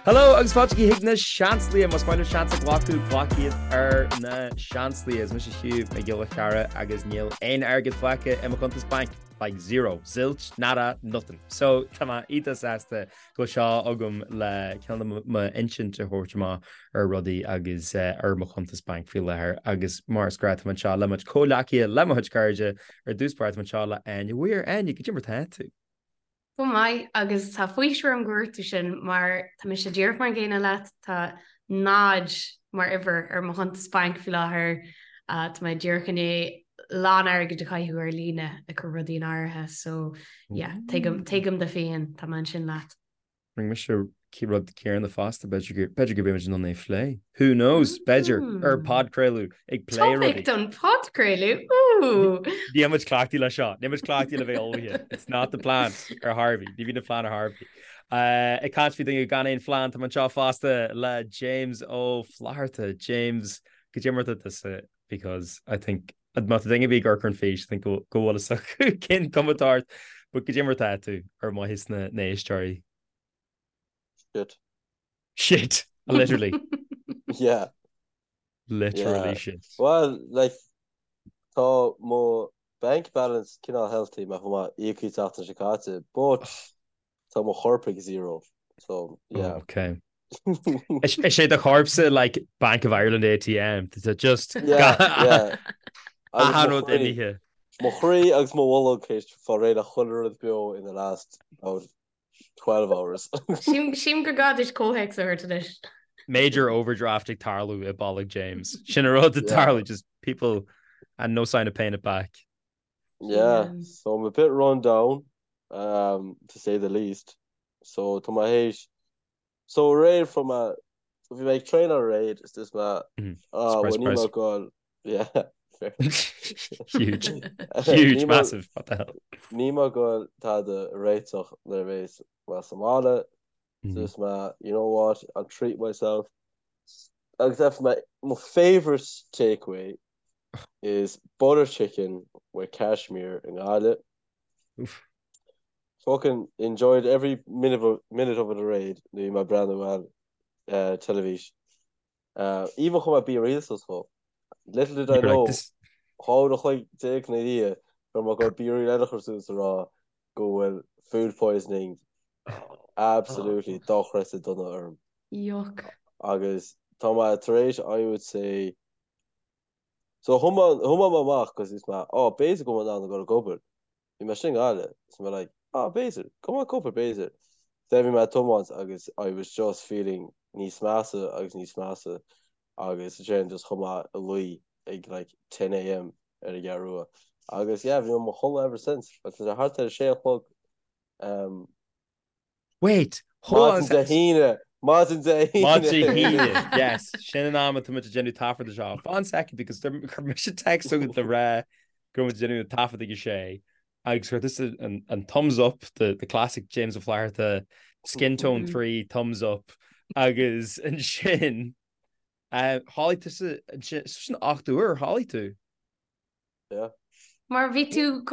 Hello agus fáilte chuig na Seansálaithe. Más maith libh seans a ghlacadh, glac iad ar na Seansálaithe. Is mise Hugh Mac Giolla Cheara agus níl aon airgead fágtha i mo chuntas bainc. Like zero, zilch, nada, nothing. So tá mé iontach sásta go bhfuil seo agam le cineál m'insint a thabhairt amach ar rudaí agus ar mo chuntas bainc faoi láthair agus mar is gnách tá mé anseo le mo chuid comhghleacaithe, le mo chuid cairde, ar dtús báire tá mé anseo le Áine Weir. Áine, goidé mar tá tú? Go maith, agus tá faoiseamh orm gur dhúirt tú sin mar tá mise díreach mar an gcéanna leat, tá náid mar uimhir ar mo chuntas bainc faoi láthair, tá mé díreach i ndiaidh lán airgid a chaitheamh ar líne ag cur rudaí in áirithe so yeah, tuigim, tuigim do phian, tá mé ansin leat. Rinne mise rud céanna fosta, b'fhéidir go mbeidh muid in ann é a phlé. Who knows? B'fhéidir, ar podchraoladh, ag plé rudaí. Topic don podchraoladh, ooh! Níl muid cleachtaithe le seo, níl muid cleachtaithe le bheith ullmhaithe. It's not the plan ar chor ar bith, ní bhíonn an phlean ar chor ar bith. Ag caint faoi duine gan aon phlean, tá mé anseo fosta le James Ó Flatharta. James, goidé mar atá tusa because I think má tá duine ar bith ag amharc ar an fís, I think go bhfuil fhios acu cén cuma atá ort, but goidé mar atá tú ar mhaithe sna n-éisteoirí. Shit. Shit, literally. Yeah. Literally shit. Well, like, tá mo bank balance cineál healthy mar fuair mé íocaíocht an tseachtain seo caite, but tá mo chorp ag zero. So, yeah. Oh, okay. Is é do chorpsa like Bank of Ireland ATM, tá just Yeah, yeah. Agus achan mo rud chroí. imithe. Mo chroí agus mo bholg théis fáil réidh le chuile rud beo in the last about 12 hours. Sílim gur gá duit comhthéacs a thabhairt anois. Major overdraft ag tarlú i bolg James. Sin an rud ag tarlú, just people and no sign of paying it back. Yeah, so I'm a bit run down, um, to say the least. So tá mé théis So aréir fuair mé bhí mé ag traenáil aréir is dúirt mé ah well níl mé ag goil yeah fair Huge. Huge, massive, what the hell. Níl mé ag goil tada a réiteach nuair a bheas mé sa mbaile so dúirt mé you know what I'll treat myself agus fuair mé mo favourite takeaway is butter chicken with Kashmir i nGaillimh. Oof. Fucking enjoyed every minute of minute of it aréir nuair a bhí mé ag breathnú ar teilifís. Even chuir mé BeReal suas dhó. Little did I know 12 uair a chloig ina dhiaidh go raibh mé ag goil BeReal eile a chur suas a rá go bhfuil food poisoning absolutely dochreidte dona orm. Yuck. Agus tá mé tar éis I would say so thiomáin mé amach cos dúirt mé oh b'fhéidir go bhfuil mé in ann a ghoil ag obair. Bhí mé sin i nGaillimh, so mé like, ah, b'fhéidir, go mbeadh cúpla b'fhéidir. Then bhí mé ag tiomáint agus I was just feeling níos measa agus níos measa agus ansin just chuaigh mé a luí ag like 10am ar an gCeathrú Rua. Agus yeah, bhí mé i mo chodladh ever since agus tá sé thart ar a sé a chlog um, Wait, hold on Maidin Dé hAoine! Maidin Dé hAoine! Maidin Dé hAoine, yes. Sin an am atá muid ag déanamh taifead de seo. Fan second because chuir mise text chugat le rá go raibh muid ag déanamh an taifead ag a sé agus chuir tusa an thumbs up, the the classic James Ó Flatharta skin tone 3 thumbs up agus ansin chodlaigh tusa ansin sin 8 uair chodlaigh tú. Yeah. Mar bhí tú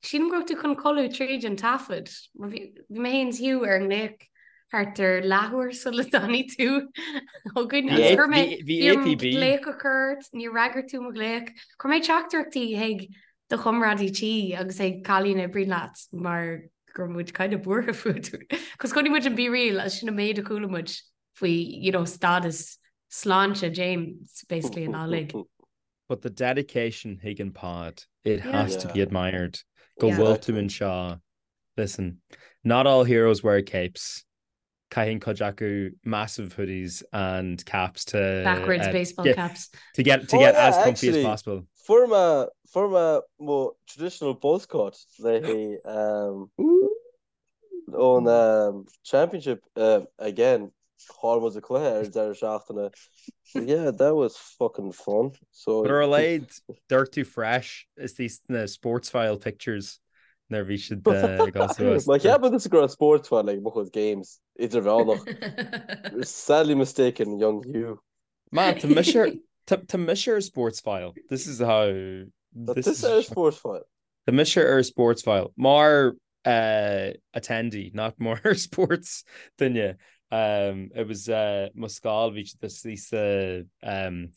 sílim go raibh tú chun codladh tríd an taifead. Mar bhí mé féin is Hugh ar an nglaoch thart ar leathuair sula dtáinig tú chugainn. Agus chuir mé Bhí APB. glaoch a chur ort, níor fhreagair tú mo ghlaoch. Chuir mé teachtaireachtaí chuig do chomrádaí tí agus chuig cailín a oibríonn leat mar go raibh muid kind of buartha fút. Cos chonaic muid an BeReal agus sin an méid a chuala muid faoi, you know, stádas sláinte James basically an lá uilig. But the dedication chuig an pod, it has to be admired. Go bhfuil tú anseo. Listen, not all heroes wear capes. Caitheann cuid acu massive hoodies and caps to Backwards baseball caps. To get to get as comfy as possible. Fuair mé fuair mé mo traditional buzz cut le haghaidh ón Championship again chaill muid an cluiche ar an deireadh seachtaine. Yeah, that was fucking fun. So But ar a laghad dúirt tú fresh is these na Sportsfile pictures nuair a bhí siad ag dul suas. Má cheapann tusa go raibh Sportsfile ag mo chuid games idirmheánach. You're sadly mistaken, young Hugh. Man, tá mise ar tá mise ar Sportsfile. This is how Tá tusa ar Sportsfile. Tá mise ar Sportsfile. Mar attendee, not mar sports duine. Um, it was uh, mo scoil bhí siad istigh sa um,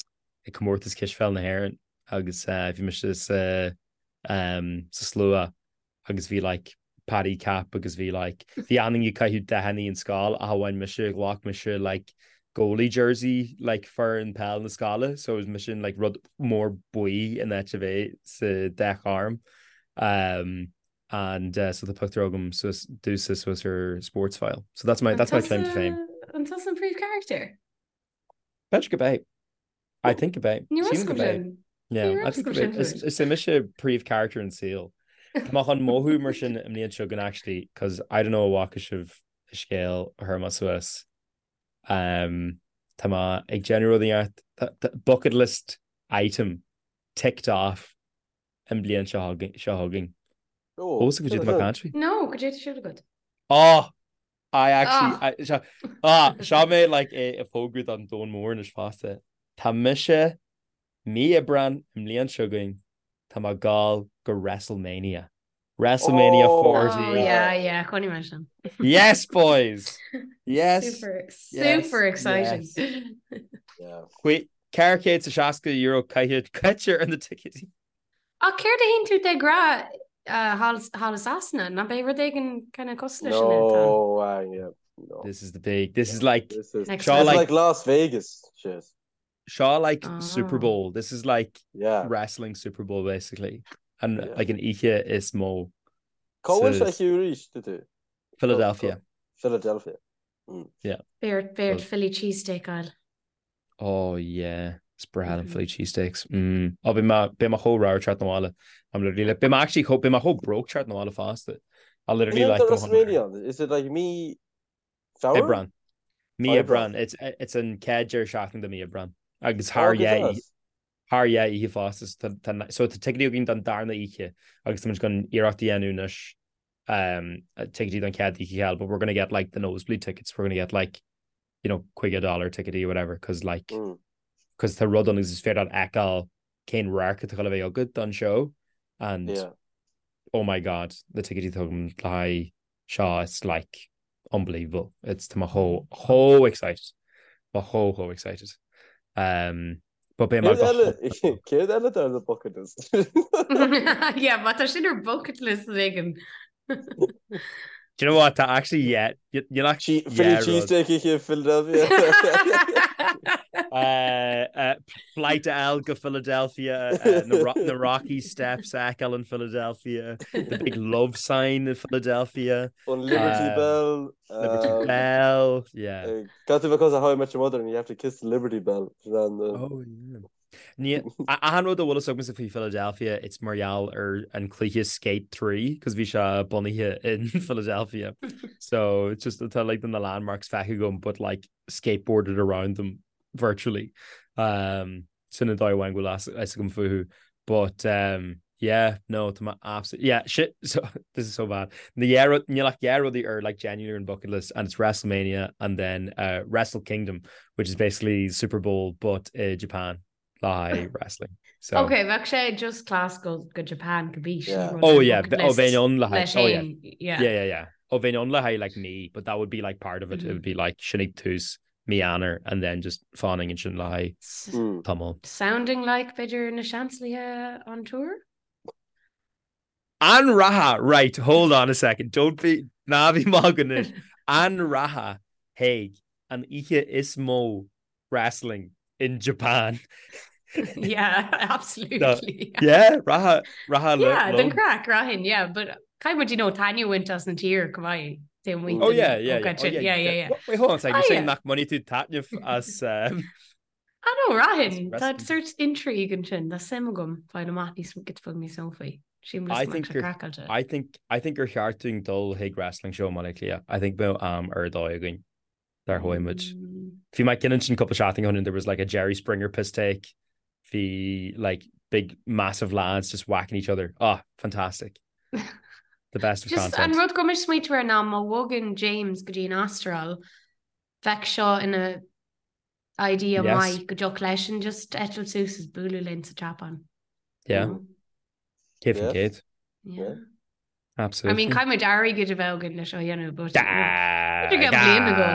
ag comórtas cispheil na hÉireann agus uh, bhí mise sa um, sa slua agus bhí like Paddy cap agus bhí like bhí achan duine ag caitheamh dathanna an scoil ach amháin mise ghlac mise like goalie jersey like foireann peil na scoile so was mise in like rud mór buí in áit a bheith sa dath gorm um, and uh, so tá pictiúr agam suas domsa suas ar Sportsfile so that's my that's my claim to fame. An tusa an príomhcharachtar? B'fhéidir gurb é. I think gurb é. Ní raibh go sin. Yeah, I think gurb é. Is é mise príomhcharachtar an saol. Tá mé chun mothú mar sin i mbliain seo chugainn actually, cos I don't know an bhfaca sibh an scéal a chuir mé suas. Um, tá mé ag déanamh rud inteacht bucket list item ticked off an bliain seo chugainn. Ó, cad é atá mé ag caint faoi? No, cad é atá ar siúl agat. Oh! I actually, ah, seo, ah, seo mé like é ag fógrú don domhan mór anois fosta. Tá mise mí Aibreán i mbliain seo chugainn, tá mé ag gabháil go WrestleMania. WrestleMania oh, 40. Oh, yeah, yeah, chonaic mé sin. Yes, boys! Yes. Super, super yes, exciting. Yes. Yeah. Wait, €460 caite caite ar na ticéidí. Ach céard a théann tú de ghnáth thall i Sasana? Ná beidh rud éigin kind of cosúil leis sin ann? No, uh, yeah, no. This is the big, this is like, this is, seo like, like Las Vegas shit. Seo like oh. Super Bowl. This is like yeah. wrestling Super Bowl basically. And yeah. like an oíche is mó. Cá bhfuil sé arís tú? Philadelphia. Philadelphia. Mm. Yeah. Beidh ort Philly cheesesteak a fháil. Oh yeah, is breá liom Philly cheesesteaks. Mm. Oh, beidh mé beidh mé chomh ramhar teacht 'na bhaile. I'm literally like, beidh mé actually chomh beidh mé chomh broke teacht 'na bhaile fosta. I literally like WrestleMania, is it like mí Feabhra? Aibreán. Mí Aibreán. It's it's an chéad deireadh seachtaine de mí Aibreán. Agus thar oh, thar dhá oíche fosta so tá ticéidí againn don darna oíche agus tá muid chun iarracht a dhéanamh anois um, ticéidí don chéad oíche a fháil, but we're gonna get like the nosebleed tickets, we're gonna get like you know, $50 ticéidí or whatever, cos like, mm. cos tá rud ann agus is féidir leat fheiceáil cén radharc atá le bheith agat don show and yeah. oh my god, na ticéidí atá agam le haghaidh seo it's like unbelievable. It's tá mé chomh chomh excited. Mé chomh chomh excited. Um, but beidh mé go Céard eile ar the bucket list? Yeah, má tá sin ar bucket list éigin. Do you know what? Tá actually yeah, níl ach Philly cheesesteak i Philadelphia. Uh, uh, flight L go Philadelphia, uh, na, na Rocky Steps a fheiceáil in Philadelphia, the big love sign in Philadelphia. An Liberty uh, Bell. Liberty um, Bell, yeah. Got to because of How I Met Your Mother and you have to kiss the Liberty Bell. Oh, yeah. Ní achan rud a bhfuil fhios agamsa faoi Philadelphia, it's mar gheall ar an cluiche Skate 3, cos bhí sé bunaithe in Philadelphia. So it's just tá like na landmarks feicthe agam, but like skateboarded around them virtually. Um, sin an dóigh amháin go bhfuil fhios agam fúthu. But um, yeah, no, tá mé absolutely, yeah, shit, so, this is so bad. Na dhá rud, níl ach dhá rudaí ar like genuinely ar an bucket list and it's WrestleMania and then uh, Wrestle Kingdom, which is basically Super Bowl but uh, Japan le haghaidh wrestling. So, Ok, bheadh sé just class go go Japan go bí. Yeah. Oh yeah, oh bheinn ann le haghaidh, oh yeah. Yeah. Yeah, yeah, yeah. Oh bheinn ann le haghaidh like mí, but that would be like part of it. Mm -hmm. It would be like sin ag tús mí Eanáir and then just fanfainn ansin le haghaidh mm. tamall. Sounding like b'fhéidir na Seansálaithe on tour? An rachfá, right, hold on a second, don't be, ná bí ag magadh anois. An rachfá chuig an oíche is mó wrestling in Japan? Yeah, absolutely. Yeah, rachfá, rachfá Yeah, den craic, rachainn, yeah, but caithfidh muid, you know, taitneamh a bhaint as an tír chomh maith. Oh yeah, yeah, yeah. Oh, yeah, yeah, yeah, yeah. Wait, hold on a second, you're ah, saying nach mbainfidh tú taitneamh as um, Ah no, rachainn, tá sort intrigue ansin, tá suim agam fáil amach níos giota beag níos mó faoi. Sílim I think gur I think I think gur cheart dúinn dul chuig wrestling show i mBaile Átha Cliath. I think bheadh am ar dóigh againn dár chuaigh muid. Mm. Bhí mé ag ansin cúpla seachtain ó shin there was like a Jerry Springer piss take. Bhí like big massive lads just whacking each other. Ah, fantastic. The best of Just content. an rud go mis smaointe ar ná má bhogann James go dtí an Astráil, bheadh seo ina idea Yes. maith go dtiocfadh leisean just eitilt suas is bualadh linn sa tSeapáin. Yeah. Mm. Céad faoin Yes. gcéad. Yeah. Absolutely. I mean, caithfidh muid airgead a bheith againn leis seo a dhéanamh, but Ah, B'fhéidir go bliain ago.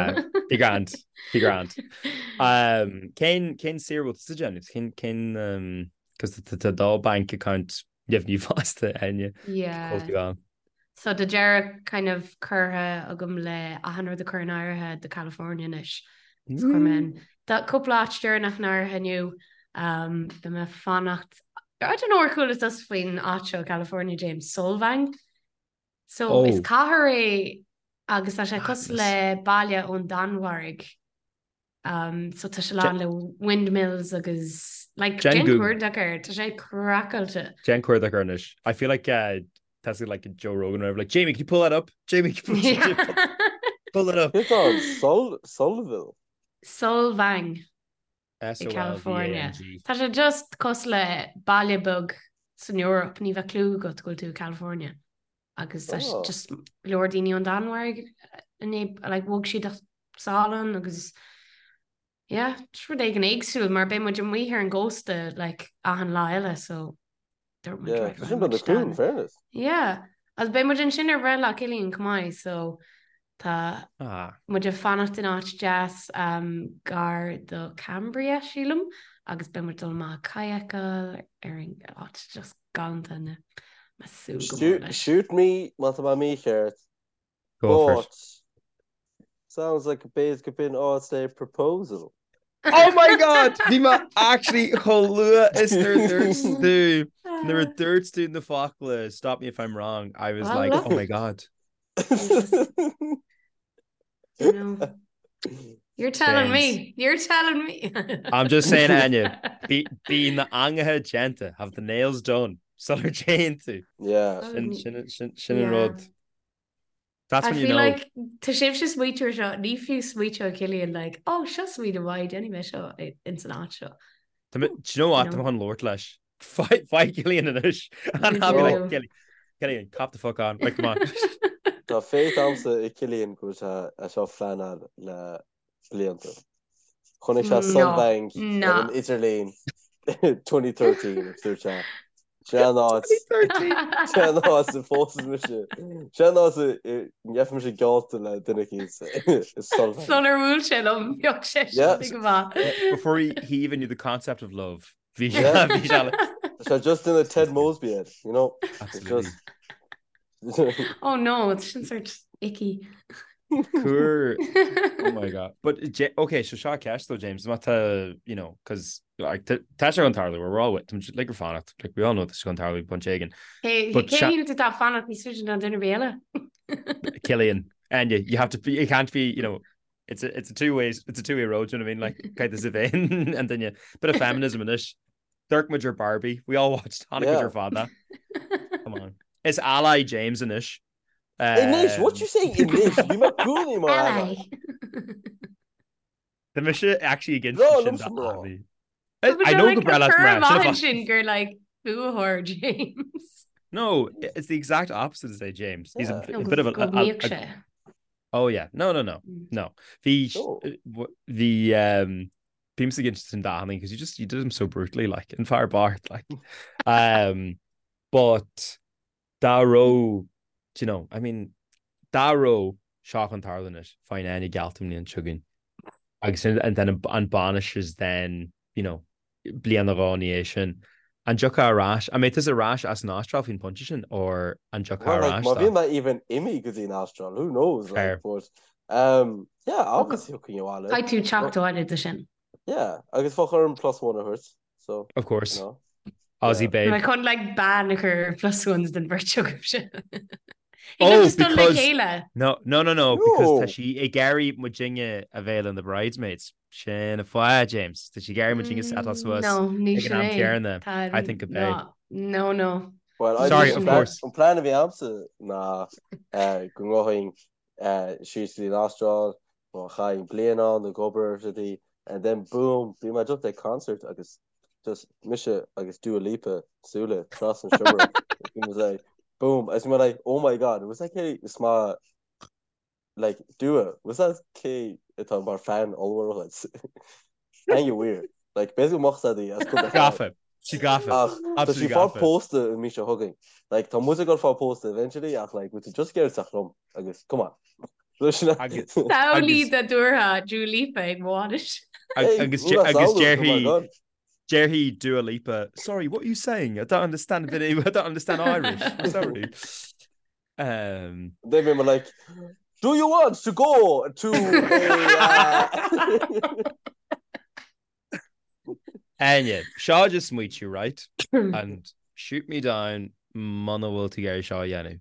Bhí grand, bhí grand. Um, cén cén saoire bhfuil tú ag déanamh? Cén cén um, cos tá do bank account deimhniú fosta Áine. Yeah. Cóil tú ann. So tá deireadh kind of curtha agam le achan rud a chur in áirithe do California anois. So chuir mé an Tá cúpla áit deireanach in áirithe inniu. Um, beidh mé ag fanacht I don't know ar chuala tusa faoin áit seo California James Solvang. So Oh. is cathair é agus tá sé cosúil le baile ón Danmhairg. Um, so tá sé lán le windmills agus like, Déan déan Google. cuardach air, tá sé craiceáilte. Déan cuardach air anois. I feel like uh, that's like Joe Rogan or whatever. Like, Jamie, can you pull that up? Jamie, can you pull, Yeah. pull that up? It's on Sol Solville. Solvang i California. S-O-L-V-A-N-G. Tá sé just cosúil le baile beag san Eoraip, ní bheadh clue agat go bhfuil tú i California. Agus tá sé Oh. just go leor daoine ón Danmhairg inné like bhog siad sall ann agus yeah, just rud éigin éagsúil mar beidh muid amuigh ar an gcósta like achan lá eile so dúirt muid Yeah, right, tá sin rachaidh been muid a cool in isteach. fairness. Yeah, agus beidh muid ansin ar bhreithlá Cillian chomh maith so tá Ah. muid ag fanacht in áit deas um, gar do Cambria sílim agus beidh muid dul amach kayakáil ar an áit just galánta na mé ag súil go mór Shoot, leis. shoot me má tá mé mícheart. Go for it. But sounds like a base could be an áit le proposal. Oh my God! Bhí mé actually chomh luath is nuair a dúirt tú nuair a dúirt tú na focla stop me if I'm wrong I was Well, like look. oh my God. You know, you're telling James. me. You're telling me. I'm just saying Áine bí bí na angaithe déanta have the nails done sular dtéann tú. Yeah. Sin sin sin sin an Yeah. rud. That's I when you feel know. like tá sibhse ag smaoitiú air seo, ní fiú smaoitiú Cillian like, oh seo smaoineamh maith, déanfaidh mé seo ins an áit seo. Tá mé- Do you know what? You Tá know. mé chun labhairt leis. Faigh faigh Cillian anois. And I'll be like, do. Cillian, Cillian, cop the fuck on. Like, come on. Tá faith agamsa i Cillian go bhfuil sé é seo a phleanáil le blianta. Chonaic sé No, Solvang ar no. an idirlíon 2013 agus dúirt sé Sin an áit 2013. Sin an áit a phósfaidh mise. Sin an áit a ngeobhaidh mise geallta le duine eicínt i Solvang. Sular bhuail sé liom, bheadh sé Yeah. sin go maith. Before he, he even knew the concept of love. Bhí Yeah. bhí sé like, Tá sé just ina Ted Mosby air, you know? It's Absolutely. just Oh no, it's sin sort icky. Cúr. Oh my God. But J okay, so seo ceist though, James, má tá, you know, cause like tá sé chun tarlú, we're all with, like we're fanacht, like we all know tá sé chun tarlú pointe éigin. Cé But cé seo- shíl tú tá fanacht níos faide ná duine ar bith eile? Cillian, and you, you have to be, you can't be, you know, it's a it's a two ways, it's a two way road, do you know what I mean? Like, kind of vein, and then you bit of feminism in this. Dirk Major Barbie, we all watched Hanukkah Yeah. your father. Come on, it's ally James and ish. Anois, what you saying anois? Bhí mé i gcónaí mar ally. Ally. The mise actually against No, sin liomsa mná. ally. But I you're know like go breá a leat cur mná, sin a amach fá- sin gur like fuathóir James. No, it's the exact opposite to say James. He's a, Yeah. a bit of a, Go a- a- mbíodh sé. Oh yeah, no, no, no, Mm. no. The No. the um, bímse against sin dathanna because you just you did him so brutally, like in Fire Bart, like, um, but dá raibh, do you know, I mean, dá raibh seo chun tarlú anois, faigheann Áine geallta an bhliain seo chugainn. Agus sin- and then an bainis is then, you know, bliain nó dhó ina dhiaidh sin. An dtiocfá ar ais, an mbeidh tusa ar ais as an Astráil faoin bpointe sin or an dtiocfá Well, ar like, ais má dá? bhíonn mé even imithe go dtí an Astráil, who knows? Like, Fair. but, um, yeah, obviously thiocfainn abhaile. Caithfidh tú teacht abhaile do sin. Yeah, agus bheadh orm plus one a thabhairt, so, Of course. you know. Aussie Yeah. babe. Mae chun like bean a chur plus ones den bheirt agaibh sin. Oh, just dul le because- chéile. No, no, no, no, because tá No. sí ag iarraidh muidinne a bheith ina bridesmaids. Sin an fáth, James. Tá sí ag iarraidh muidinne settláil suas No, ní ag an sin am é. céanna. Tá I think a b'é. No, no, no. Well, I Sorry, think of an plan- course. An plan a bhí agamsa ná eh, go ngabhfainn eh, síos go dtí an Astráil, nó chaithfinn bliain ann ag obair ar rudaí, and then boom, bhí mé just ag concert agus just mise agus Dua Lipa súile trasna an seomra. Bhí mé like, boom, agus bhí mé like, oh my god, was that cé is má like Dua, was that cé atá mar fan ollmhór agat? Hang weird. Like basically moch í as cúpla Gafa. Sí gafa. Ach, tá sí Absolutely fá gafa. pósta an mhí seo chugainn. Like, tá muid ag dul fá pósta eventually ach like, bhfuil tú just ag iarraidh teacht liom agus come on. Samhlaigh dá dtabharfá Dua Lipa ag mo bhainis. Agus déarfaidh déarfaidh Dua Lipa, sorry, what are you saying? I don't understand a bit, I don't understand Irish. I'm sorry. Um, Then we were like, do you want to go to a... Uh... Áine, seo just smaoitiú, right? And shoot me down muna bhfuil tú ag iarraidh seo a dhéanamh.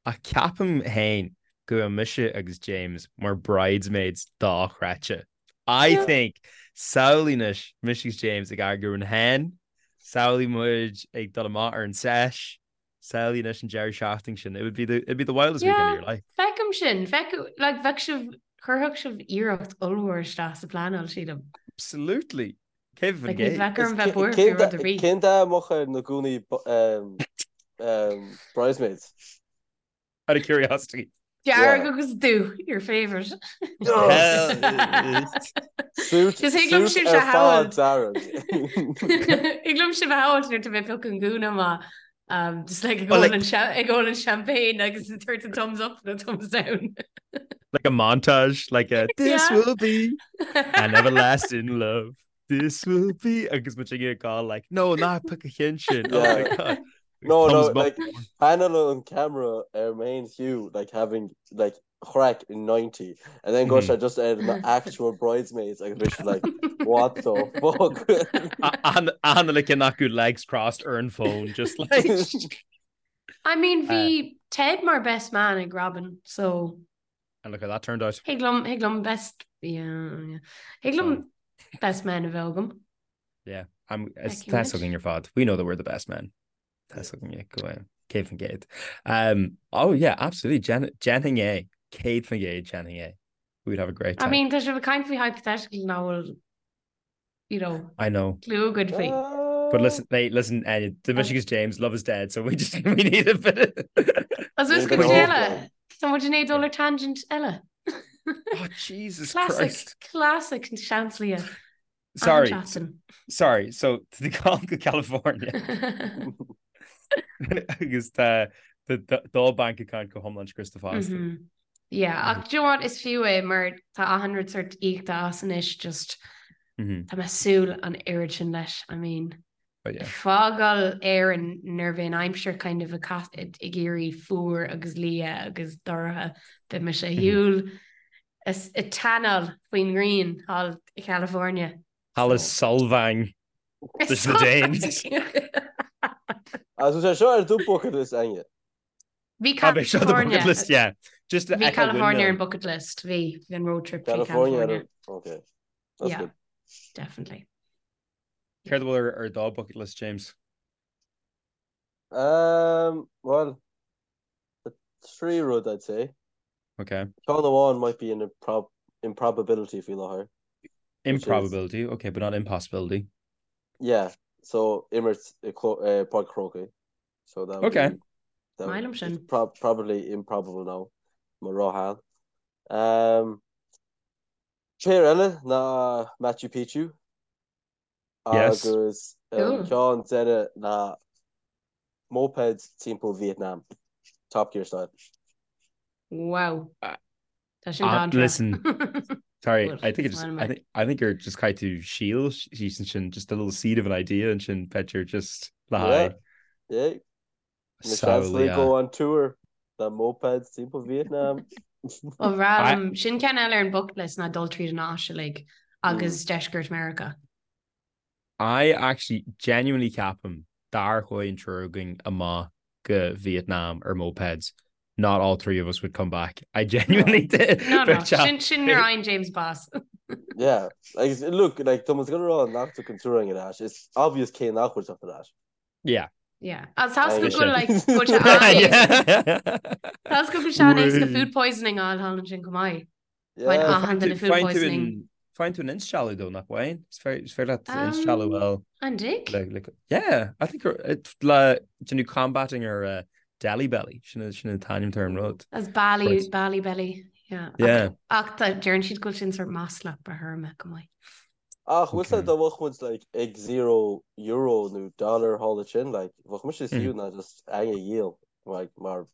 Ach ceapaim féin go bhfuil mise agus James mar bridesmaids dochreidte. I think samhlaigh anois mise agus James ag eagrú an hen, samhlaigh muid ag dul amach ar an sesh, samhlaigh anois an deireadh seachtaine sin. It would be the, it'd be the wildest weekend of your life. Feicim sin, feic, like, bheadh sibh, chuirfeadh sibh iarracht ollmhór isteach sa phleanáil, sílim. Absolutely. Cé Like, ní bheadh orm bheith buartha faoi rud ar bith. Cén dath a mbeadh ar na gúnaí um, bridesmaids? Out of curiosity. Dearg agus dubh, your favourite. Suit Just thig liom suit sibh ar a fad shamhailt. dearg. Thig liom sibh a shamhailt nuair atá mé ag piocadh an gúna amach. Um, just like ag Well, ól like- an cha- ag ól an champagne agus ag tabhairt an thumbs up nó thumbs down. Like a montage, like a this Yeah. will be an everlasting love. This will be agus muid ag gabháil like no ná pioc an ceann sin. Oh my Yeah. God. No, no, Thumbs up. like panel on camera ar main Hugh like having like craic in 90 and then go Mhm. sé just ar na actual bridesmaids agus bhí siad like what the fuck An like in acu legs crossed ar an phone just like I mean bhí Ted mar best man ag Robin, so and look how that turned out. thig liom thig liom best yeah, yeah. Thig liom best man a bheith agam. Yeah, I'm it's Feicfidh muid. tá againn ar fad. We know that we're the best men. Tá againn go 100%. Um, oh yeah, absolutely. Jen Déanfainn é 100% déanfainn é. We would have a great I time. mean tá sibh ag caint faoi hypothetical nach bhfuil you know I know. clue agaibh faoi. But listen, hey, listen, uh, the Michigan's James, love is dead, so we just we need a bit of... As is Bit go of eile hope. Tá muid i ndiaidh dul ar tangent eile. Oh, Jesus Classic, Christ. classic Seansálaithe. Sorry, Seachtain. sorry. So to the call to California agus tá the do bank account go hiomlán scriosta fosta. Mhm. Yeah, ach do you know what is fiú é mar tá achan rud sort íoctha as anois just Mhm. tá mé ag súil an oiread sin leis. I mean, But yeah. fágáil Éirinn nuair a bhí an aimsir kind of ag ag éirí fuar agus liath agus dorcha beidh mise ar shiúl ag tanáil faoin ngrian thall i California. Thall i Solvang leis na Danes. Agus sé seo ar do bucket list Áine. Bhí Ah, bhí seo the California. bucket list, yeah. Just to Bhí echo California ar an windmill. bucket list, bhí bhí an road trip trí California. California. Okay. That's Yeah. good. Definitely. Céard a bhfuil ar ar do bucket list, James? Um, well, the trí rud I'd say. Okay. Ceann amháin might be an improb improbability faoi láthair. Which is- Improbability, okay, but not impossibility. Yeah, so imirt i uh, Páirc an Chrócaigh. So that would Okay. be, that Maith would, liom sin. it's prob probably improbable now. Mar róthal. Um, Péire eile ná Machu Picchu Yes. agus an Cool. ceann deireadh ná mopeds timpeall Vietnam. Top Gear style. Wow. Uh, Tá sin uh, dáintra. listen. Sorry, Well, I think it it's just one of I my- think I think you're just kind to shield sin just a little seed of an idea and sin b'fhéidir just le Yeah. haghaidh Yeah. Na seans samhlaigh. go on tour. The mopeds timpeall Vietnam. Ó bhreá sin ceann eile ar an bucket list ná dul tríd an Áise like, agus deisceart Meiriceá. I actually genuinely ceapaim dá chuaigh an triúr againn amach go Vietnam ar mopeds. Not all three of us would come back. I genuinely did. No, no, But yeah. sin sin nuair a fhaigheann James bás. Yeah. Like, look, like, tá muid ag rá nach dtiocfaidh an triúr againn ar ais. It's obvious cé nach bhfuil teacht ar ais. Yeah. Yeah. Agus tá go Mise. bhfuil like, go bhfuil sé an-éasca- Yeah. tá go bhfuil sé an-éasca Wait. food poisoning a fháil thall ansin chomh maith. Yeah. Faigheann Find achan tú duine food find tú poisoning. an find tú an instealladh though nach bhfaigheann? Is féidir is féidir leat instealladh Um, well An dtig? like, like, yeah I think it le déanamh combating ar uh, Delhi belly sin sin an t-ainm ar an rud. As Bali, Right. Bali belly. Yeah. Yeah. Ach tá deireann siad go bhfuil sin sort maslach ba thirme go maith. Ach bhfuil Okay. dá mbeadh muid like ag zero euro nó dollar thall ansin like bheadh mise Mm. fiú ná just Áine a dhíol like mar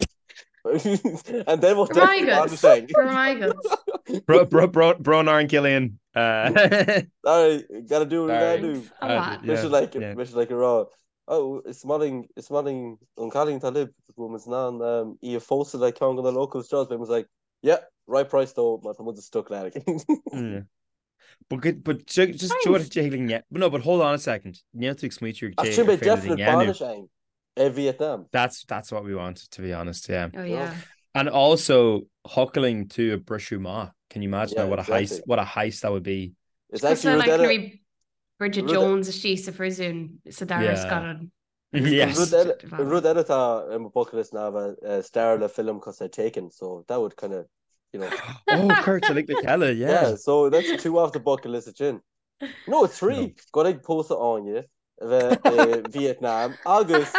And then we'll Go raibh maith agat. Go raibh maith agat. Bro, bro, bro, brón orainn Cillian. Sorry, gotta do what we gotta do. A lot. Mise like, mise like a rá. Oh, is maith linn, is maith linn an cailín atá libh, go bhfuil muid in ann um, í a phósadh le ceann de na locals jobs, beidh muid like, yeah, right price though, má tá muid stuck le mm. But good, but just do it, no, but hold on a second. Níl tú ag smaoitiú ag Sin beidh definite bainis ann i Vietnam. That's that's what we want, to be honest, yeah. Oh yeah. And also thiocfadh linn tú a briseadh amach. Can you imagine yeah, what a heist what a heist that would be? It's actually like like Bridget Jones istigh sa phríosún sa dara scannán. Yes. Rud eile atá ar mo bucket list ná bheith star le film cosúil le Taken, so that would kind of, you know. Oh, Kurt, like le chéile, yeah. Yeah, so that's two off the bucket list sin. No, three. Go ag pósadh Áine a bheith i Vietnam agus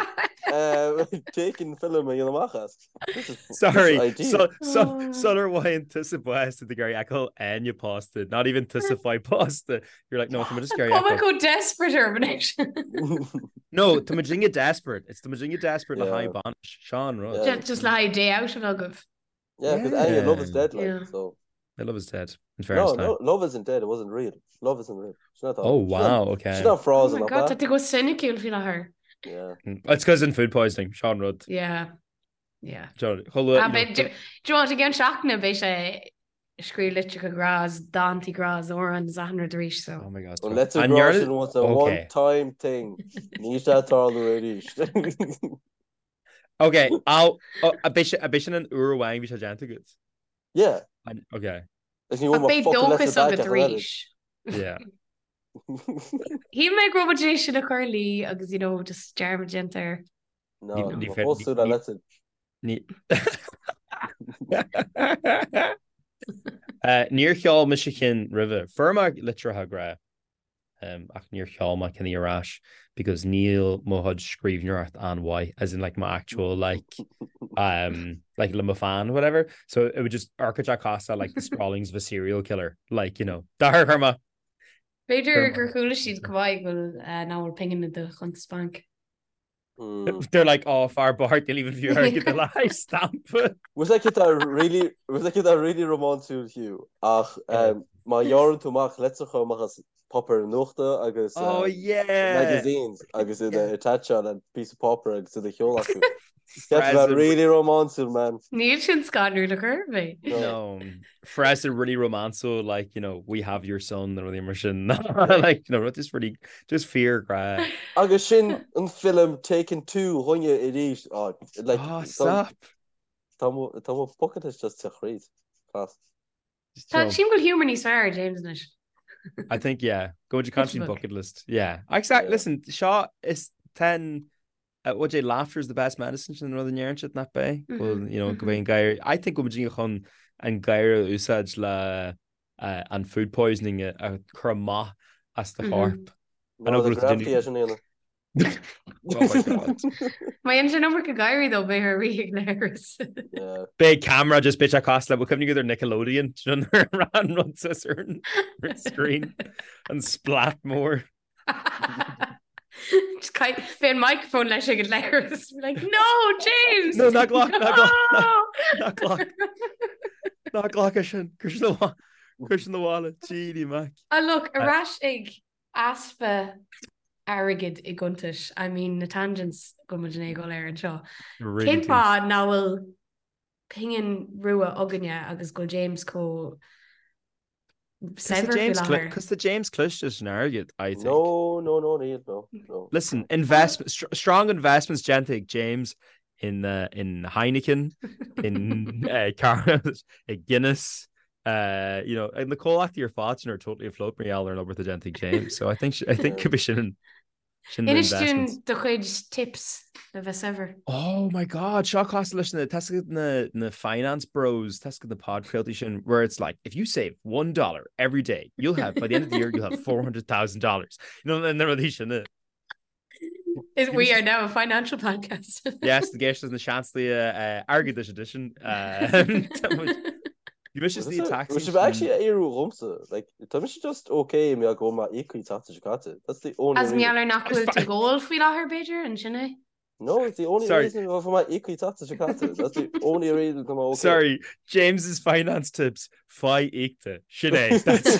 Taken film a dhéanamh amach as. Sorry, so, so, oh. sular bhfaigheann tusa bás tá tú ag iarraidh fheiceáil Áine pósta, not even tusa fáil pósta. You're like, no, tá just ag iarraidh Tá chomh desperate orm anois. No, tá muidinne desperate. It's tá muidinne desperate le haghaidh bainis. Seo an rud. Just le haghaidh day out agaibh. Yeah, because Áine, love is dead, like, so. The love is dead. In fairness, no, no, love isn't dead. It wasn't real. Love isn't real. She's not oh, wow, okay. She's not frozen. Oh my God, tá tú go soiniciúil faoi láthair. Yeah. It's because in food poisoning, seo an rud. Yeah. Yeah. Do you want again seachtain beidh sé ag scríobh litreacha grá is dántaí grá is amhráin is achan rud arís so. Oh my God. An litir grá sin was a one time thing. Níl sé ag tarlú arís. Ok, ab é sin an uair amháin bhí sé déanta agat? Yeah. Ok. Is ní bhfuil Beidh dóchas agat arís. Yeah. Shíl mé go raibh muid é sin a chur luí agus you know just dearmad déanta air. No, ní fós tú le litir. Ní Níor sheol mise ceann roimhe. Fuair mé litreacha grá ach níor sheol mé ceann ar ais because níl mo chuid scríbhneoireacht an-mhaith as in like my actual like um, like le mo pheann whatever. So it would just amharc cosúil like the scrawlings of a serial killer like you know dar chuir mé B'fhéidir gur chuala siad go maith go bhfuil nach bhfuil pingin i do chuntas bainc. They're like, oh, fear bocht, níl even fiú airgead le haghaidh stampa. Was like that really was like that really rómánsúil Hugh ach má ghearrann tú amach litreacha amach as páipéar nuachta agus oh, yeah. magazines agus iad a attacháil le píosa páipéir agus iad a sheoladh acu. That's about really rómánsúil man. Níl sin scanrúil ar chor ar bith. No. Frasa really rómánsúil like you know we have your son nó rudaí mar sin like you know rud just really just fíor grá. Agus sin an film Taken 2 dhúinne arís oh, like oh, stop. Tá mo bucket list just te chríd. Class. Tá sílim go bhfuil humour níos fearr James anois. I think yeah go to country bucket list yeah exactly listen seo is ten What é laughter is the best medicine sin an rud a ndeireann siad nach b'é? Go bhfuil, you know, go bhfuil an gáire I think go bhfuil muidinne chun an gáire a úsáid le an food poisoning a chur amach as do chorp. I know go bhfuil tú déanamh- sin a dhéanamh. Oh my God. Má dhéanann sé an iomarca gáirí dó beidh ar rí ag léiris. Yeah. Beidh camera just beidh sé cosúil le bhfuil cuimhne agat ar Nickelodeon do you know, nuair a ran rud suas ar an ar an screen an splat mór. Just kind Bhí an microphone leis ag an leithreas. Like, no, James! No, ná glac, ná glac, ná glac. Ná glac é sin, cuir sin abhaile, cuir sin abhaile, Genie Mac. Ah, look, ar ais ag easpa airgid i gcuntais, I mean, na tangents go bhfuil muid ag dul air anseo. Cén fáth nach bhfuil pingin rua againne agus go bhfuil James chomh saibhir faoi láthair. Cos tá James cliste leis an airgead, I think. No, no, no, níl, no, no. Listen, investment, strong investments déanta ag James in, uh, in Heineken, in uh, car, i Guinness, uh, you know, na comhlachtaí ar fad sin are totally afloat mar gheall ar an obair atá déanta ag James. So I think, I think could be sin Sin na Inis dúinn investments. do chuid tips le bheith saibhir. Oh my God, seo cosúil leis na tá a fhios agat na na finance bros, tá a fhios agat na podchraoltaí sin where it's like if you save $1 every day, you'll have by the end of the year you'll have $400,000. You know, na rudaí sin. eh. Is we are now a financial podcast. Yes, the géis na seanslaí airgeadais edition. Uh, Bhí mise sna taxis. Bhí sibh actually ag éiriú dhomsa. Like, tá mise just okay mé go ma íocaí tata seo caite. That's the only As reason. mar gheall ar nach bhfuil tú ag ól faoi láthair b'fhéidir, an sin é? No, it's the only Sorry. reason for my íocfaí tata seo caite. That's the only reason tá mé okay. Sorry, James's finance tips, faigh íocta. Sin é. That's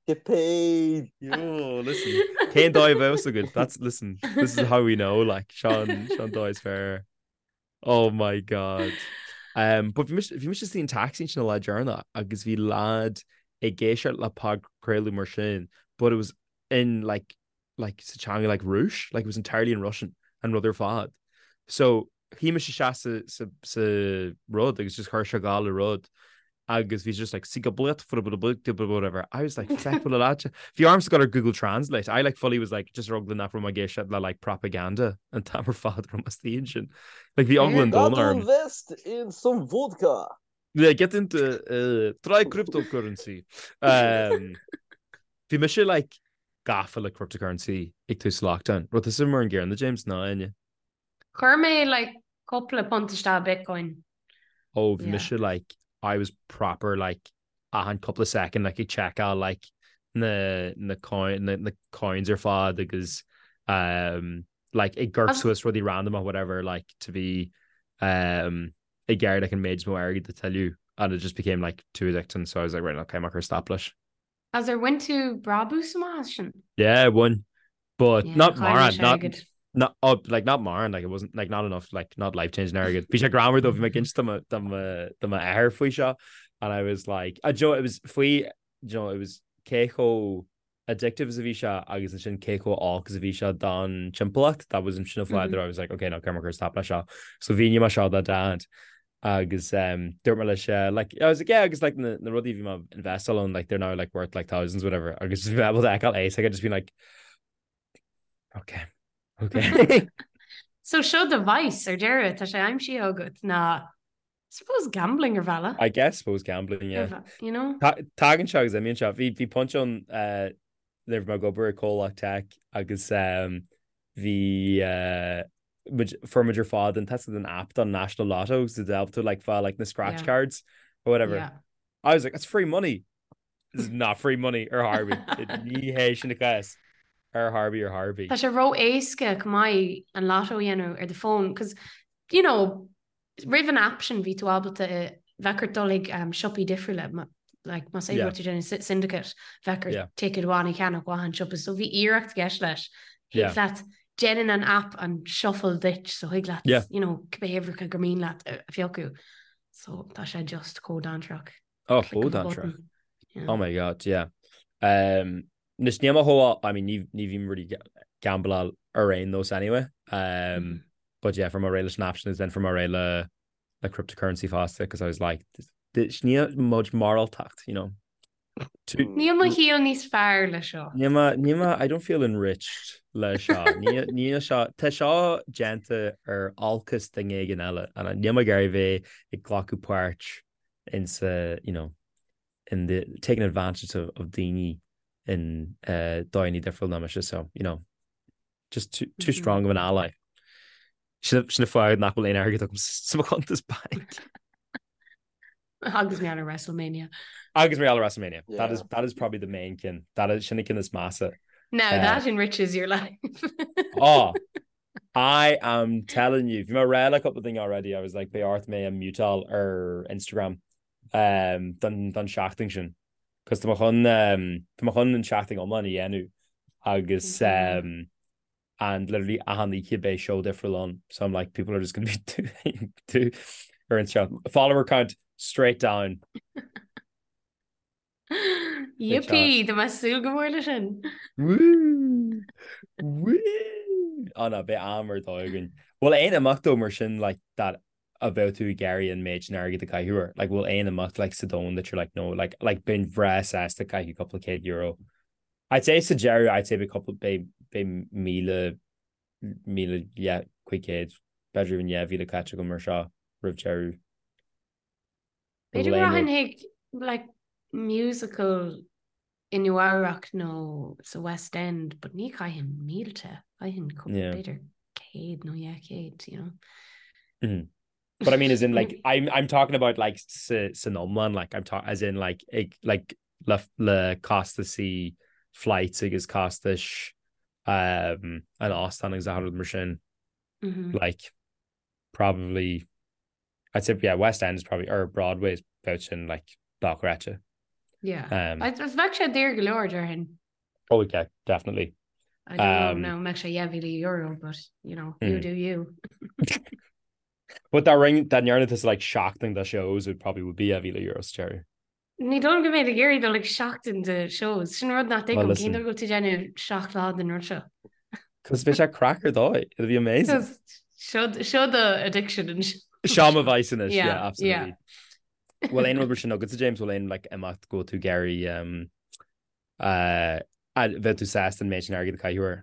Get paid. Yo, listen. Cén dóigh a bheadh agat? That's listen. This is how we know like Sean Sean dóigh is fair. Oh my god. Um, but bhí mise bhí mise istigh in taxi ansin an lá deireanach agus bhí lad ag éisteacht le podchraoladh mar sin, but it was in like like sa teanga like Rúis, like it was entirely in Russian an rud ar fad. So shuigh mise isteach sa sa sa rud agus just chuir sé ag gabháil le rud agus bhí just like whatever. I was like feck bhfuil leat. Bhí ormsa gabháil ar Google Translate. I like fully was like just ar eagla nach raibh mé ag éisteacht le like propaganda an t-am ar fad raibh mé istigh ansin. Like bhí eagla an domhain orm. Invest in some vodka. Yeah, get into uh, try cryptocurrency. Um, bhí mise like gafa le cryptocurrency ag tús lockdown. Raibh tusa mar an gcéanna James ná Áine? Chuir mé like cúpla punt isteach i Bitcoin. Oh, bhí mise like, I was proper like achan cúpla second like ag checkáil like na na coin na na coins ar fad agus um, like ag gorp suas rudaí random or whatever like to be um, ag iarraidh like an méid is mó airgid a thuilleamh and it just became like too addicting so I was like right okay, I'm stop leis. As ar bhain tú brabús amach as sin? Yeah, bhain. But yeah, not mórán, not not oh, like not mórán, like it wasn't like not enough, like not life changing airgead. Bhí sé greannmhar though bhí mé ag inse do m'athair faoi seo and I was like, uh, Joe, it was faoi, you know, it was cé chomh addictive is a bhí sé agus ansin cé chomh olc is a bhí sé don timpeallacht, that was sin an fáth that I was like, okay, no, caithfidh mé cur stop leis seo. So mhínigh mé seo do dad agus um, dúirt mé leis uh, like, I was like, yeah, agus like na, na rudaí bhí mé investáil ann, like they're now like worth like thousands whatever agus bhí mé able to fheiceáil é, so I just been like okay, okay. So seo do vice ar deireadh tá sé aimsithe agat ná suppose gambling ar bhealach. I guess suppose gambling, yeah. You know? Tagann sé agus imíonn sé. Bhí bhí pointe ann uh, nuair a bhí mé ag obair i comhlacht tech agus um, bhí uh, muid fuair muid ar fad an test an app don National Lotto so to help to like fáil like na scratch Yeah. cards or whatever. Yeah. I was like, it's free money. This is not free money ar chor ar bith. Ní hé sin an cás ar chor ar bith ar chor ar bith. Tá sé ró-éasca go maith an lotto a dhéanamh ar do fón, cos you know, Roimh an app sin bhí tú ábalta bheadh ort dul chuig siopaí difriúla, like más é go raibh tú ag déanamh syndicate, bheadh ort ticket amháin a cheannach ó achan siopa, so bhí iarracht i gceist leis. Thig leat, déanann an app an shuffle duit, so thig leat, you know, cibé uimhreacha gur mian leat a phiocadh. So tá sé just chomh dainséarach. Oh, chomh dainséarach. Oh my God, yeah. Um, Anois níl mé chomh, I mean, ní ní bhím really gambláil ar aon nós anyway. Um, but yeah, fuair mé réidh leis an app sin then fuair mé réidh le le cryptocurrency fosta because I was like, níl muid moráltacht, you know. Níl mo shaol níos fearr le seo. Níl mé, níl mé, I don't feel enriched le seo. Níl, níl seo, tá seo déanta ar olcas duine éigin eile and níl mé ag iarraidh bheith ag glacadh páirt in sa, you know, in the taking advantage of, of daoine in uh, dóigheanna difriúil ná mise, so, you know, just too, too mm -hmm. strong of an ally. Sin an fáth nach bhfuil aon airgead agam sa mo chuntas bainc. Agus mar gheall ar WrestleMania. Agus mar gheall ar WrestleMania. Yeah. That is, that is probably the main ceann. That is sin an ceann is measa. Now uh, that enriches your life. oh, I am telling you, bhí mé ag rá le cúpla duine already, I was like, beidh ort mé a mutáil ar Instagram um, don, don seachtain sin. Cos tá mé chun, um, tá mé chun an seachtain iomlán a dhéanamh agus um, and literally achan oíche beidh show difriúil ann. So I'm like, people are just gonna be too, too ar Instagram. Follower count straight down. Yippee, tá mé ag súil go mór leis sin. Woo! Woo! Oh no, beidh am ar dóigh againn. Bhfuil aon imeacht though mar sin like that a bheadh tú ag iarraidh an méid sin airgid a chaitheamh air? Like bhfuil aon imeacht like sa domhan that you're like no, like like bheinn bhreá sásta caitheamh cúpla céad euro. I'd say sa deireadh I'd say beidh cúpla beidh beidh 1,000 1,500 b'fhéidir even 2,000 caite agam ar seo roimh deireadh. B'fhéidir go rachainn chuig like musical i Nua Eabhrac nó sa West End, but ní chaithfinn mílte, chaithfinn b'fhéidir 100 nó 200, you know. Mm -hmm. But I mean as in like I'm I'm talking about like sa san iomlán like I'm talking as in like ag like le le costaisí flights agus costais. um, an óstán agus achan rud mar sin. Like, probably, I'd say, yeah, West End is probably, or Broadway is about sin, like, dochreidte. Yeah. Um, Bheadh sé daor go leor, déarfainn. Oh, yeah, definitely. I don't know, mbeadh sé €10,000, but, you know, you do you. But dá ring, dá ndearna tusa like seachtain de shows would probably would be €10,000 sa deireadh. Ní dóigh liom go mbeinn ag iarraidh dul ag seachtain de shows. Sin rud nach dtuigim, cén dóigh go bhfuil tú ag déanamh 7 lá den rud seo? Cos beidh sé craic ar dóigh. It'll be amazing. Seo seo do addiction anois. Seo mo vice anois, yeah, absolutely. Bhfuil aon rud mar sin agatsa James, bhfuil aon like imeacht go bhfuil tú ag iarraidh um, uh, bheadh tú sásta an méid sin airgid a chaitheamh air?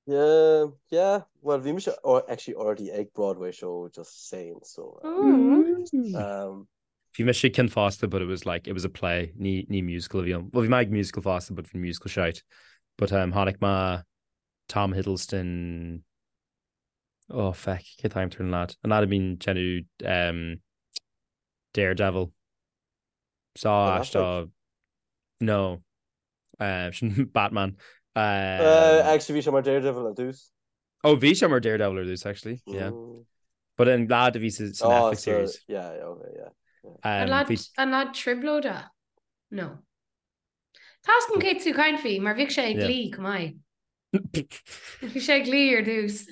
Yeah, yeah. Well, bhí mise actually already ag Broadway show just saying, so. Um, Bhí mise ag ceann fosta, but it was like, it was a play, ní, ní musical a bhí ann. Well, bhí mé ag musical fosta, but bhí musical shite. But um, chonaic mé Tom Hiddleston, oh feck, cé t-ainm ar an lad? An lad a bhíonn ag déanamh um, Daredevil. Saw Affleck? No. Sin Batman. Actually bhí sé mar Daredevil ar dtús. Oh bhí sé mar Daredevil ar dtús actually, yeah. But an lad a bhí sa Netflix series. Yeah, yeah, okay, yeah. An lad an lad trioblóide? No. Tá a fhios agam cé tú ag caint faoi mar bhíodh sé ag Glee chomh maith. Bhí sé ag Glee ar dtús.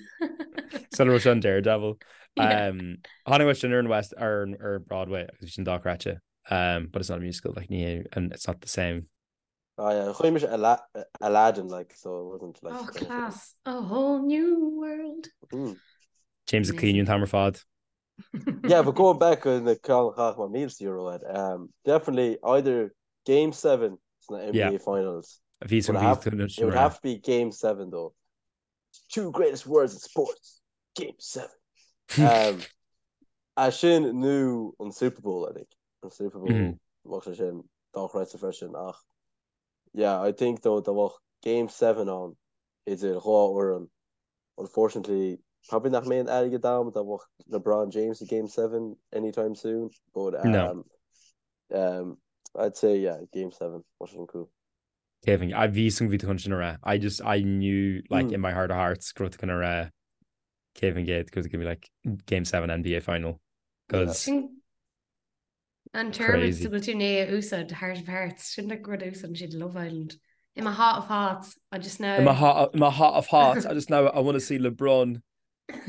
Sula raibh sé an Daredevil. Chonaic mé sin ar an West ar ar Broadway agus bhí sin dochreidte. But it's not a musical like ní hé and it's not the same. Ah yeah, chonaic mise Aladdin like so it wasn't like Oh class, a whole new world. Mm. James ag caoineadh an t-am ar fad. Yeah, but going back on the ceann a chaithfeadh mé €1,000 air, um, definitely either Game 7 sna NBA yeah. Finals. Bhí it would have to be Game 7 though. Two greatest words in sports. Game 7. Um, é sin nó an Super Bowl, I think. An Super Bowl mm. bheadh sé sin dochreidte freisin ach yeah, I think though dá mbeadh Game 7 ann idir dhá fhoireann unfortunately probably nach mbeidh an airgead agam dá mbeadh LeBron James i Game 7 anytime soon but um, no. um, I'd say yeah Game 7 bheadh sin cool. Kevin, I bhí san bhí chun sin a rá. I just I knew like mm. in my heart of hearts go raibh tú chun a rá Kevin Gate go gonna be like Game 7 NBA final because yeah. An term go bhfuil tú i ndiaidh a úsáid heart of hearts sin like rud a úsáideann siad Love Island. In my heart of hearts, I just know. In my heart, in my heart of hearts, I just know I want to see LeBron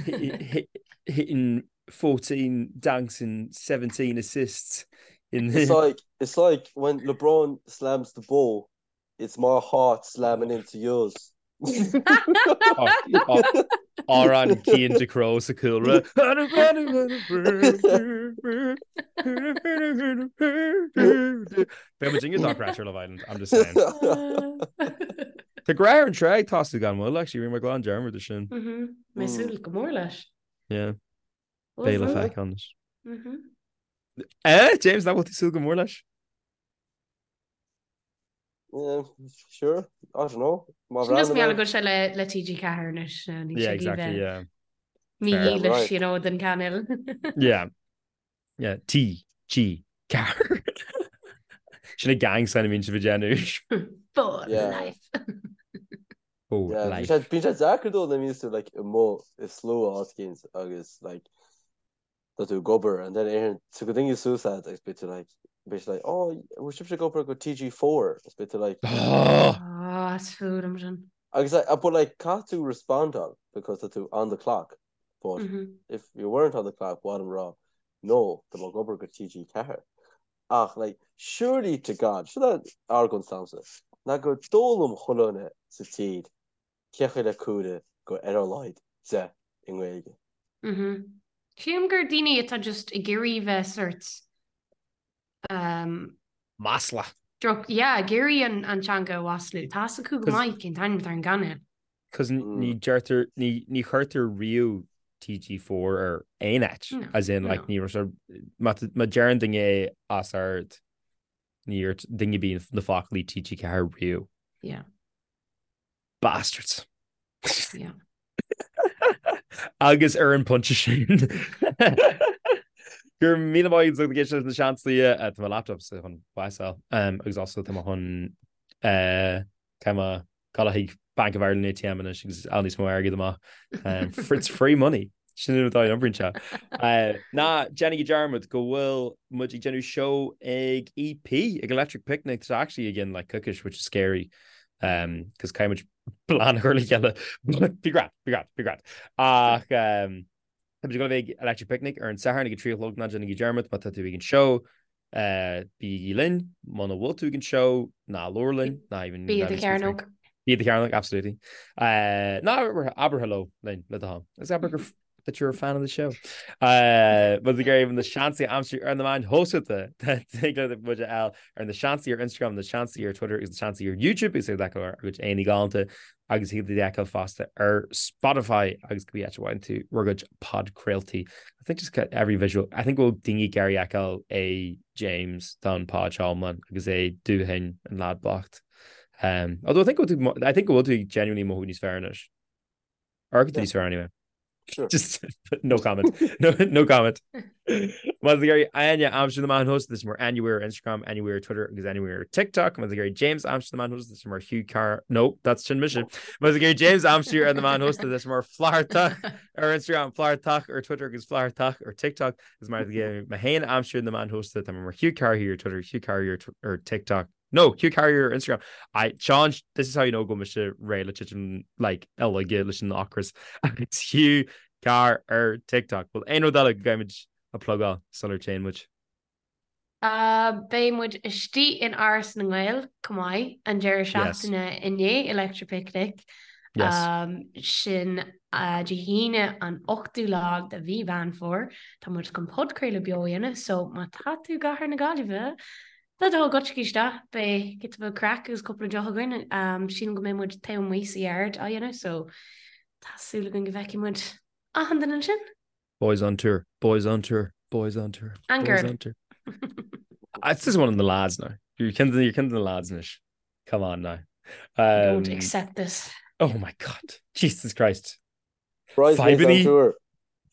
hit, hit, hitting 14 dunks and 17 assists. In the... It's like it's like when LeBron slams the ball, it's my heart slamming into yours. Amhrán Cian Ducrot sa cúlra. Beidh muid inge dochreidte ar Love Island, I'm just saying. Tá Grá ar an Trá ag tosú gan mhoill, actually, rinne mé glan dearmad de sin. Mé ag súil go mór leis. Yeah. Beidh le feiceáil anois. Eh, James, nach bhfuil tú ag súil go mór leis? Yeah, sure. I don't know. Má Sin just bhreathnaigh mé go bhfuil sé le le TG4 anois nó níl Yeah, sé exactly, bheith yeah. mídhílis, you know, den cainéal. Yeah. Yeah, T, G, Car. Sin an gang sign a bhíonn sibh ag déanamh. For Yeah. life. For Yeah, bíonn life. sé bíonn sé deacair dó nuair a bhíonns tú like amuigh i slua áit éicint agus like tá tú ag obair and then éiríonn tú go daoine suas leat agus beidh tú like beidh siad like oh bhfuil sibhse ag obair go TG4 agus beidh tú like Oh! Oh, is fuath liom sin. agus like but like caithfidh tú respondáil because tá tú on the clock but mm -hmm. if you weren't on the clock ba mhaith liom rá no tá mé ag obair go TG4 ach like surely to God seo argóint s'agamsa ná go d'fhoghlaim chuile dhuine sa tír cé chaoi le comhrá go ar a laghad 10 i nGaeilge. Mhm. Sílim gur daoine atá just ag iarraidh bheith sort um Masla. droch, yeah, ag iarraidh an an teanga a mhaslú. Tá fhios acu go maith cén t-ainm atá ar an gcainéal. Cos ní deirtear, ní ní chuirtear riamh TG4 ar aon áit, No, as in like no. ní raibh sé, má má deireann duine é os ard, ní dúirt duine ar bith na foclaí TG4 riamh. Yeah. Bastards. Yeah. Agus ar an bpointe sin go raibh míle maith agat ag éisteacht leis na Seansálaithe eh, tá mo laptop sa chun bás a fháil um, agus also tá mé chun eh, tá mé Gabháil chuig Bank of Ireland ATM anois agus fháil níos mó airgid amach. It's free money. Sin an dóigh a n-oibríonn sé. Ná déanaigí dearmad go bhfuil muid ag déanamh seó ag EP, ag Electric Picnic, tá actually again like coicís, which is scary, cos caithfidh muid plean a chur le chéile. Bí great, bí great, bí great. Ach tá muid ag dul a bheith ag Electric Picnic ar an Satharn ag a 3 a chlog, ná déanaigí dearmad má tá tú ag an seó, Bígí linn, muna bhfuil tú ag an seó, ná labhair linn, ná even... Bí i do chearnóg. Bí i do chearnóg, absolutely. Ná abair hello linn, le do thoil. Agus abair gur that you're a fan of the show. Má tá tú ag iarraidh na Seansálaithe a aimsiú ar na meáin shóisialta, tig leat muid a fháil ar na Seansálaithe ar Instagram, na Seansálaithe ar Twitter agus na Seansálaithe ar YouTube agus ag ár gcuid aghaidheanna galánta agus thig leat iad a fheiceáil fosta ar Spotify agus cibé áit a bhfaigheann tú bhur gcuid podchraoltaí. I think just get every visual. I think go bhfuil daoine ag iarraidh fheiceáil é James don pod seo iomlán agus é dúthain an lad bocht. Um, although I think go bhfuil tú I think go bhfuil tú genuinely mothú níos fearr anois. Or go níos fearr anyway. Sure. Just no comment. No, no comment. Má tá tú ag iarraidh Áine a aimsiú ar na meáin shóisialta tá sí mar Áine Weir ar Instagram, Áine Weir ar Twitter agus Áine Weir ar TikTok. Má tá tú ag iarraidh James a aimsiú ar na meáin shóisialta tá sé mar Hugh Carr. No, that's sin mise. Má tá tú ag iarraidh James a aimsiú ar na meáin shóisialta tá sé mar Flathartach ar Instagram, Flathartach ar Twitter agus Flathartach ar TikTok. Agus má tá tú ag iarraidh mé féin a aimsiú ar na meáin shóisialta tá mé mar Hugh Carr ar Twitter, Hugh Carr ar TikTok. No, Hugh Carrier ar Instagram. I, Sean, this is how you know go bhfuil mise réidh le titim like uilig leis an ocras. It's Hugh Carr ar TikTok. Bhfuil aon rud eile go gcaithfimid a plugáil sular téann muid? Uh, beidh muid istigh in Áras na nGael chomh maith an deireadh seachtaine i ndiaidh Electric Picnic. Yes. Um, sin uh, Dé hAoine an 8ú lá de mhí Mheán Fómhair. Tá muid chun podchraoladh beo a dhéanamh, so má tá tú i gcathair na Gaillimhe, Le do thoil gabhaigí isteach, beidh giota beag craic agus cúpla deoch againn. Sílim go mbeidh muid taobh amuigh sa yard á dhéanamh so tá súil againn go bhfeicfidh muid achan duine ansin. Boys on tour, boys on tour, boys on tour, And boys girl. on tour. It's just one of the lads now. You're kind of, you're kind of the lads anois. Come on now. I don't accept this. Oh my God. Jesus Christ. Bridesmaids on tour.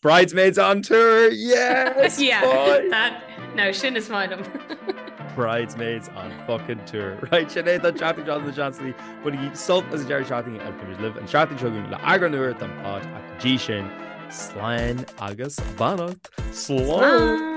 Bridesmaids on tour, yes! yeah, boy. that, no, sin is maith liom. Bridesmaids on fucking tour. Right, sin é don tseachtain seo na Seansálaithe, bainigí sult as an deireadh seachtaine agus beimid libh an tseachtain seo chugainn le eagrán úr den pod ach go dtí sin, slán agus beannacht. Slán! Slán!